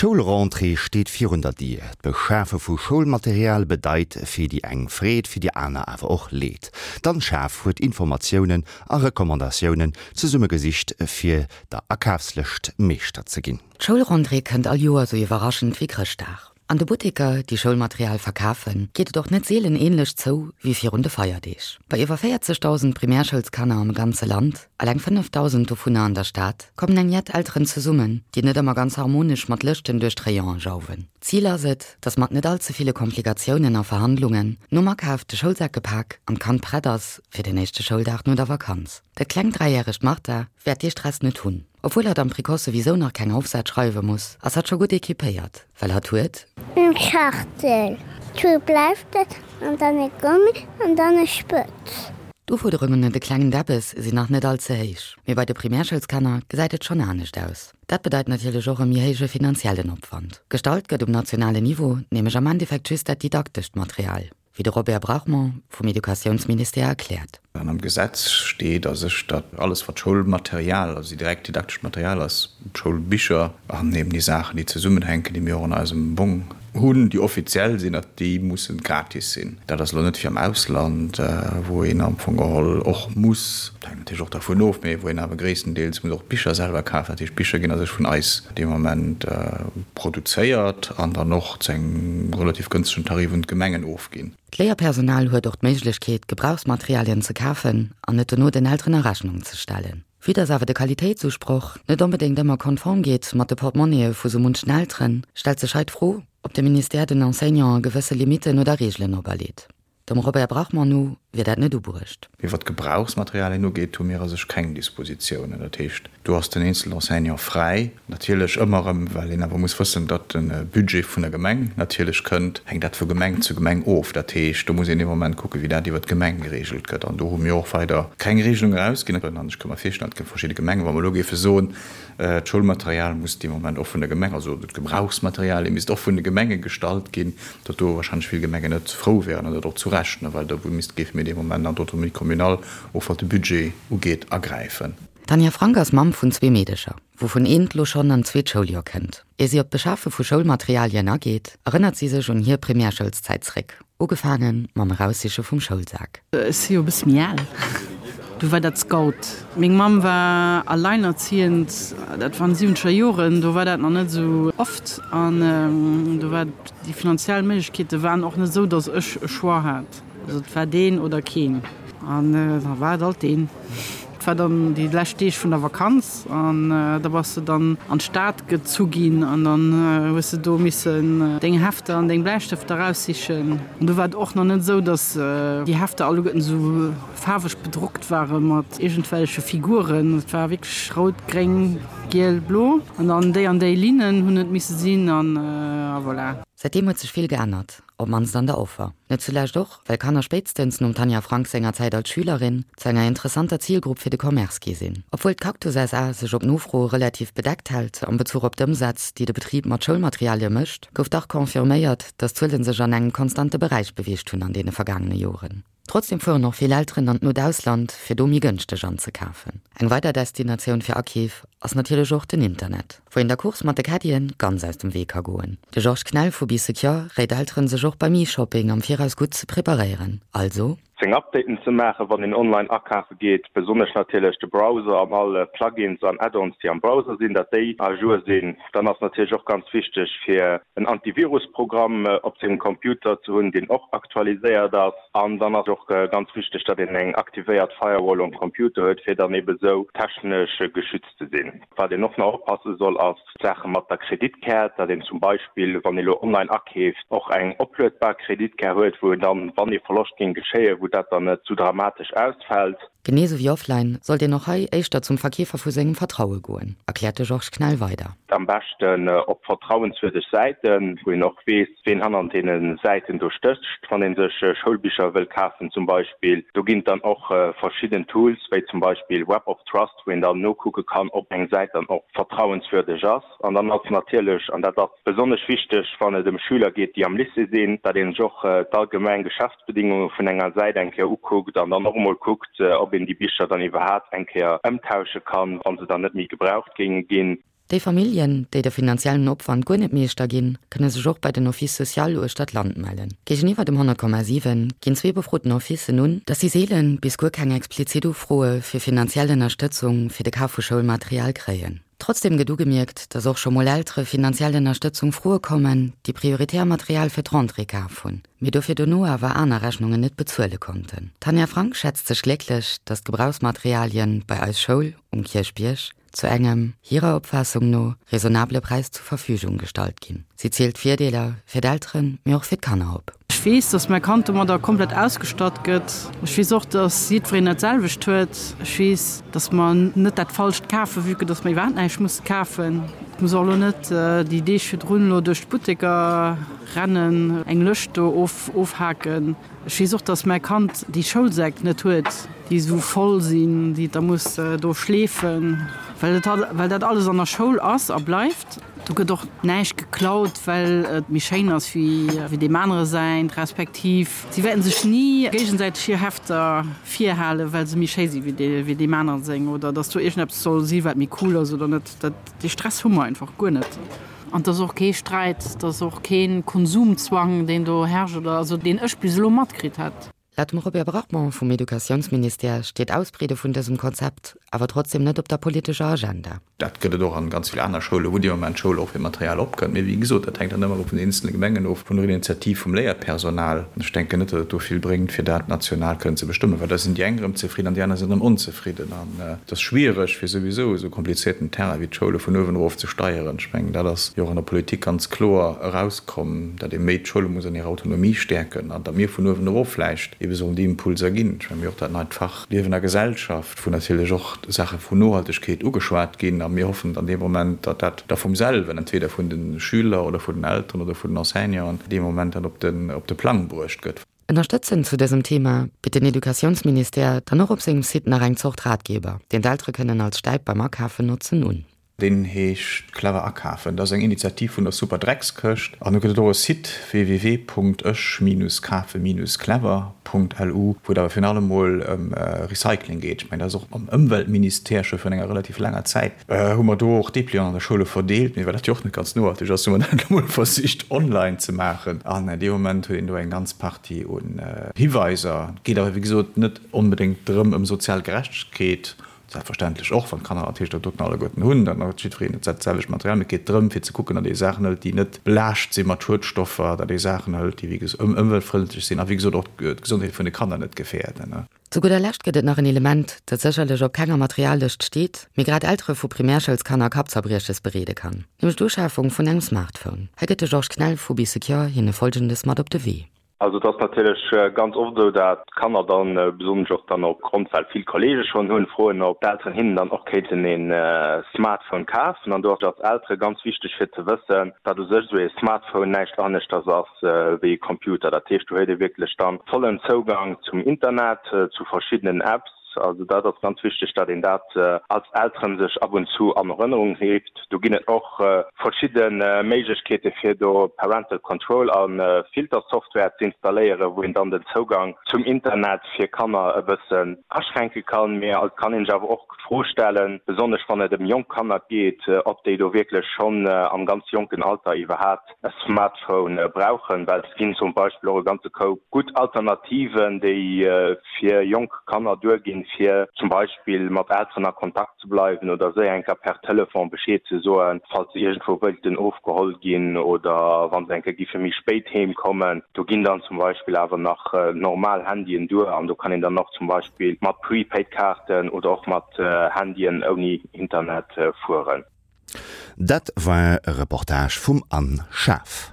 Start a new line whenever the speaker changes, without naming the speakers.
D'Schoulrentrée steet virun der Dier. D'Beschafe vu Schoulmaterial bedeit fir déi eng Freed, fir déi aner awer och Leed. D'Anne Schaaf huet Informatiounen a Recommandatiounen zesummegesicht, fir der Akafslëscht Meeschter ze ginn.
D'Schoulrentrée kënnt all Joer sou iwwerraschend wéi Chrëschtdag. An de Butteker, déi Schoulmaterial verkafen, geet et och net seelen änlech zou wéi virun de Feierdeeg. Bei iwwer 40.000 Primärschoulskanner am ganze Land, eleng 5.000 dovunner an der Stad, kommen eng jett Elteren zesummen, déi net ëmmer ganz harmonesch mat Lëschten duerch d'Rayone jauwen. Zil ass et, dass mat net all ze ville Komplikatiounen a Verhandlungen nom Akaf de Schoulsak gepak an d'Kand prett ass fir den éischte Schouldag no der Vakanz. Dat klengt dräijäregt Martha wäert dee Stress net hunn. Obwuel hatt am Précoce souwisou nach keng Aufsätz schreiwe muss, ass hatt scho gutt equipéiert, well hatt huet.
Eng Schachtel, zwou Bläistëft an dann e Gummi an dann e Spëtz.
D'Ufuerderungen un de klengen Debbes sinn nach net all ze héich, mee bei de Primärschoulskanner gesäit et schonn anescht aus. Dat bedeit natierlech och e méi héije finanziellen Opwand. Gestallt gëtt um nationalen Niveau nämlech am Endeffekt just dat didaktescht Material. Wéi de Robert Brachmond vum Educatiounsministère erkläert.
An am Gesetz steet a sech, datt alles wat Schoulmaterial, also direkt didaktescht Material ass, d'Schoulbicher an eben déi Saachen, déi zesummenhänken, déi mir och an eisem Bong hunn, déi offiziell sinn, datt déi musse gratis sinn. Dat ass elo net wéi am Ausland, wou een am Fong geholl och muss, dat hänkt natierlech och dervun of, mee wou een awer gréisstendeels muss och d'Bicher selwer kafen. Dat heescht, d'Bicher ginn a sech vun eis dee Moment produzéiert an dann och zu engem relativ gënstegen Tarif un d'Gemengen ofginn.
D'Léierpersonal huet och d'Méiglechkeet, Gebrauchsmaterialien ze kafen an et dono den Elteren a Rechnung ze stellen. Vue dass awer de Qualitéitsusproch net onbedéngt ëmmer konform geet mat de Portemonnaie vu sou munchen Elteren, stellt sech hei d'Fro, ob de Ministère den Enseignanten gewësse Limitten oder Reegelen operleet. Dem Robert Brachmann no wier dat net ubruecht.
Mee wat d'Gebrauchsmaterialien ugeet, hu mir a sech keng Dispositiounen. Dat heescht, do ass den eenzelen Enseignant fräi. Natierlech ëmmer erëm, well een awer muss wëssen, datt de Budget vun der Gemeng natierlech kënnt, hänkt dat vu Gemeng zu Gemeng of. Dat heescht, do muss een dee Moment kucken, wéi dat iwwert d'Gemeng geregelt gëtt. An do hu mir och weider keng Regelung erausginn. An ech ka mer virstellen, et gëtt verschidde Gemengen, wa mer elo géife soen, D'Schoulmaterial muss dee Moment och vun der Gemeng, also d'Gebrauchsmaterialie misst och vun de Gemenge gestallt ginn, datt do wahrscheinlech vill Gemengen net frou wären, an dat och zu Recht, well do misst, géife mir dee Moment an d'Autonomie communale, och wat de Budget ugeet, agräifen.
D'Tanja Frank ass Mamm vun zwee Meedecher, wouvun eent lo schonn an d'zweet Schouljoer kënnt. Ier si op d'Beschafe vu Schoulmaterialien ageet, erënnert si sech un hir Primärschoulszäit zréck. Ugefaange mam Eraussiche vum Schoulsak.
Ech si jo e bësse méi al. Du war dat Scout. Meng Mamm war alleinerziehend, dat waren siwwenzeger Joren, do war dat nach net esou oft an do war déi finanziell Méiglechkeete waren och net esou, datt ech e Choix hat. Also et war deen oder keen an da war et alt deen. Et war dann déi lescht Deeg vun der Vakanz an da bass de dann an d'Stad gezu ginn an dann hues de do missen deng Hefter an deng Bläistëfter eraussichen. An do war et och nach net esou, datt déi Hefter alleguerten esou faarweg bedruckt ware mat iergendwelleche Figuren. Et war wierklech rout, gréng, giel, blo an dann déi an déi Linnen hunn et misse sinn an voilà.
Säitdeem huet sech vill geännert. Op mannst an der Offer. Net zulescht och, well Kanner spéitstens nom Tanja Frank senger Zäit als Schülerin zu enger interessanter Zilgrupp fir de Commerce gi sinn. Obwuel d'Cactus SA sech op Nofro relativ bedeckt hält am Bezuch op d'Ëmsätz, déi de Betrib mat Schoulmaterialie mécht, gouf dach confirméiert, datt d'Zuele sech an engem konstante Beräich beweegt hunn an deene vergaangene Joren. Trotzdem fueren och vill Elteren an d'not Ausland, fir do méi gënschteg anzekafen. Eng weider Destinatioun fir Akeef ass natierlech och den Internet, wou een der Course mat de Caddien ganz aus dem Wee ka goen. De Georges Knell vu Bee Secure réit Elteren, sech och beim E-Shopping am Viraus gutt ze preparéieren, also.
Seng Updaten ze maachen, wann een online akafe geet, besonnesch natierlech de Browser an all Plugins an Add-ons, déi am Browser sinn, datt déi à jour sinn. Dann ass natierlech och ganz wichteg, fir en Antivirus-Programm op sengem Computer ze hunn, deen och aktualiséiert ass. An dann ass och ganz wichteg, datt een eng aktivéiert Firewall um Computer huet, fir dann ebe sou technesch geschützt ze sinn. Wat een och nach oppasse soll, ass d'Saache mat der Kreditkaart, datt een zum Beispill, wann ee lo online akeeft, och eng opluedbar Kreditkaart huet, wou een dann, wann ee Verloscht géing geschéien, wou dat dann net zu dramatesch ausfält.
Genee sou wéi offline sollt een och hei éischter zum Verkeefer vu sengem Vertraue goen, erkläert de Georges Knell weider.
Am beschten op vertrauenswürdeg Säiten, wou een och weess, ween hannernt deene Säiten do stécht, wann ee sech Schoulbicher wëll kafen zum Beispill. Do ginn et dann och verschidden Tools, wéi zum Beispill Web of Trust, wou een dann nokucke kann, ob eng Säit dann och vertrauenswürdeg ass. An dann ass natierlech, an dat ass besonnesch wichteg, wann et ëm Schüler geet, déi am Lycée sinn, datt ee sech och d'allgemeng Geschäftsbedingunge vun enger Säit eng Kéier ukuckt an dann och emol kuckt, ob een déi Bicher dann iwwerhaapt eng Kéier ëmtausche kann, wa se dann net méi gebraucht géinge ginn.
Déi Familljen, déi de finanziellen Opwand guer net Meeschter ginn, kënne sech och bei den Office social uechter d'Land mellen. Géigeniwwer dem 100,7 ginn zwee befroten Officen un, dass si seelen bis guer keng explizit Ufroe fir finanziell Ënnerstëtzung fir de Kaf vu Schoulmaterial kréien. Trotzdeem gëtt ugemierkt, dass och scho mol Eltere finanziell Ënnerstëtzung froe kommen, déi prioritär Material fir d'Rentrée kaf hunn, mee dofir dono awer aner Rechnungen net bezuele konnten. D'Tanja Frank schätzt sech glécklech, dass d'Gebrauchsmaterialien bei Eis Schoul um Kierchbierg zu engem, hirer Opfaassung no, raisonnabele Präis zur Verfügung gestallt ginn. Si zielt d'Virdeeler fir d'Elteren, mee och fir d'Kanner op.
Ech weess, dass mäi Kand domadder komplett ausgestatt gëtt. Ech weess och, dass jiddwereen dat selwecht huet. Ech weess, dass mer net dat Falscht kafen, vue que dass mer iwwerhaapt näischt musse kafen. Ech muss och elo net déi Deeg virdrun elo duerch d'Butteker rennen, eng Lëscht do ofhaken. Ech weess och, dass mäi Kand déi Schoulsäck net huet, déi esou voll sinn, déi et da muss do schleefen, well et well dat alles an der Schoul ass a bleift. Do gëtt och näischt geklaut, well et méi schéin ass wéi wéi deem anere säint, respektiv si wäerten sech ni géigesäiteg hir Hefter virhalen, well se méi schéi si wéi dee wéi deem anere seng oder dass do iergendeppes soll si wat méi cool ass oder net. Dat dee Stress hu mer einfach guer net. An et ass och kee Sträit, et ass och kee Konsumzwang, deen do herrscht oder also deen ech bis elo matkritt hätt.
Laut dem Robert Brachmond vum Educatiounsministère steet d'Ausbreede vun dësem Konzept awer trotzdem net op der politescher Agenda.
Dat gëtt et och an ganz vill aner Schoulen, wou dee Moment d'Schoul och fir Material opkënnt. Mee wéi gesot, dat hänkt dann ëmmer erëm vun den eenzele Gemengen of, vun der Initiativ vum Léierpersonal. Ech denken net, datt et do vill bréngt, fir dat national kënnen ze bestëmmen, well da sinn déi eng erëm zefridden an déi aner sinn erëm onzefridden. Et ass schwiereg, fir souwisou esou komplizierten Terrain wéi d'Schoule vun uewen erof ze steieren. Ech mengen, dat ass jo och an der Politik ganz kloer erauskomm, datt ee méi d'Schoule muss an hirer Autonomie stäerken an datt mir vun uewen erof vläicht ebe sollen déi Impulser ginn. Ech mengen, mir hu och dat neit Fach Liewen a Gesellschaft, wou natierlech och Saache vun Nohaltegkeet ugeschwat ginn. A mir hoffen dann dee Moment, datt dat da vum selwen, entweder vun de Schüler oder vun den Elteren oder vun den Enseignanten, dee Moment dann op de Plang bruecht gëtt.
Ënnerstëtzend zu dësem Thema bitt den Educatiounsministère dann och op sengem Site nach eng Zort Ratgeber, deen d'Eltere kënnen als Stäip beim Akafen notzen, un.
Deen heescht Clever akafen. Dat ass eng Initiativ vun der Super Dreckskëscht. An do gëtt et och e Site, www.ech-kafe-clever.lu, wou et awer virun allem mol ëm Recycling geet. Ech mengen, dat ass och am Ëmweltministère scho virun enger relativ laanger Zäit Hu mer do och Dépliant an der Schoule verdeelt, mee well dat jo och net ganz nohalteg ass, hu mer dat elo mol versicht online ze maachen. An dee Moment huet een do eng ganz Partie un Hiweiser. Et geet awer wéi gesot net onbedéngt drëm ëm sozial Gerechtegkeet, selbstverständlech och, wann d'Kanner natierlech dat doten alleguerten hunn, dann huet jiddwereen dat selwecht Material, mee et geet drëm fir ze kucken, datt ee Saachen hëlt, déi net belaascht si mat Schuedstoffer, datt ee Saachen hëlt, déi wéi gesot ëmweltfrëndlech sinn a wéi gesot och d'Gesondheet vun de Kanner net gefäerden.
Zu gudder Lescht gëtt et nach en Element, dat sécherlech op kenger Materiallëscht steet, mee grad Eltere vu Primärschouls-Kanner Kappzerbrieches bereede kann, nämlech d'Uschafung vun engem Smartphone. Hei gëtt de Georges Knell vu Bee Secure hinne Folgendes mat op de Wee.
Also et ass natierlech ganz oft esou, dat d'Kanner dann, besonnesch och dann opgrond well vill Kollege schonn hunn, froen ob d'Elteren hinnen dann och kéinten ee Smartphone kafen. An do ass et als Eltere ganz wichteg fir ze wëssen, dat u sech esou ee Smartphone näischt aneschters ass, wéi e Computer. Dat heescht, do huet ee wierklech dann vollen Zougang zum Internet, zu verschiddenen Apps. Also dat ass ganz wichteg, datt een dat als Elteren sech ab und zu an Erënnerung rifft. Do ginn et och verschidde Méiglechkeete fir do Parental Control a Filtersoftware ze installéieren, wou een dann den Zougang zum Internet fir Kanner e bëssen aschränke kann. Mee et kann een sech awer och d'Fro stellen, besonnesch wann et ëm jonk Kanner geet, ob déi do wierklech schonn am ganz jonken Alter iwwerhaapt e Smartphone brauchen, well et ginn zum Beispill och e ganze Koup gutt Alternativen, déi fir jonk Kanner duerginn, fir zum Beispill mat Elteren a Kontakt ze bleiwen oder séier eng Kéier per Telefon Bescheed ze soen, falls se iergendwou wëilten ofgeholl ginn oder wa se eng Kéier giffe méi spéit heem kommen. Do ginn dann zum Beispill awer nach normal Handyen duer an do kann een dann och zum Beispill mat Prepaid-Kaarten oder och mat Handyen ouni Internet fueren.
Dat war e Reportage vum Anne Schaaf.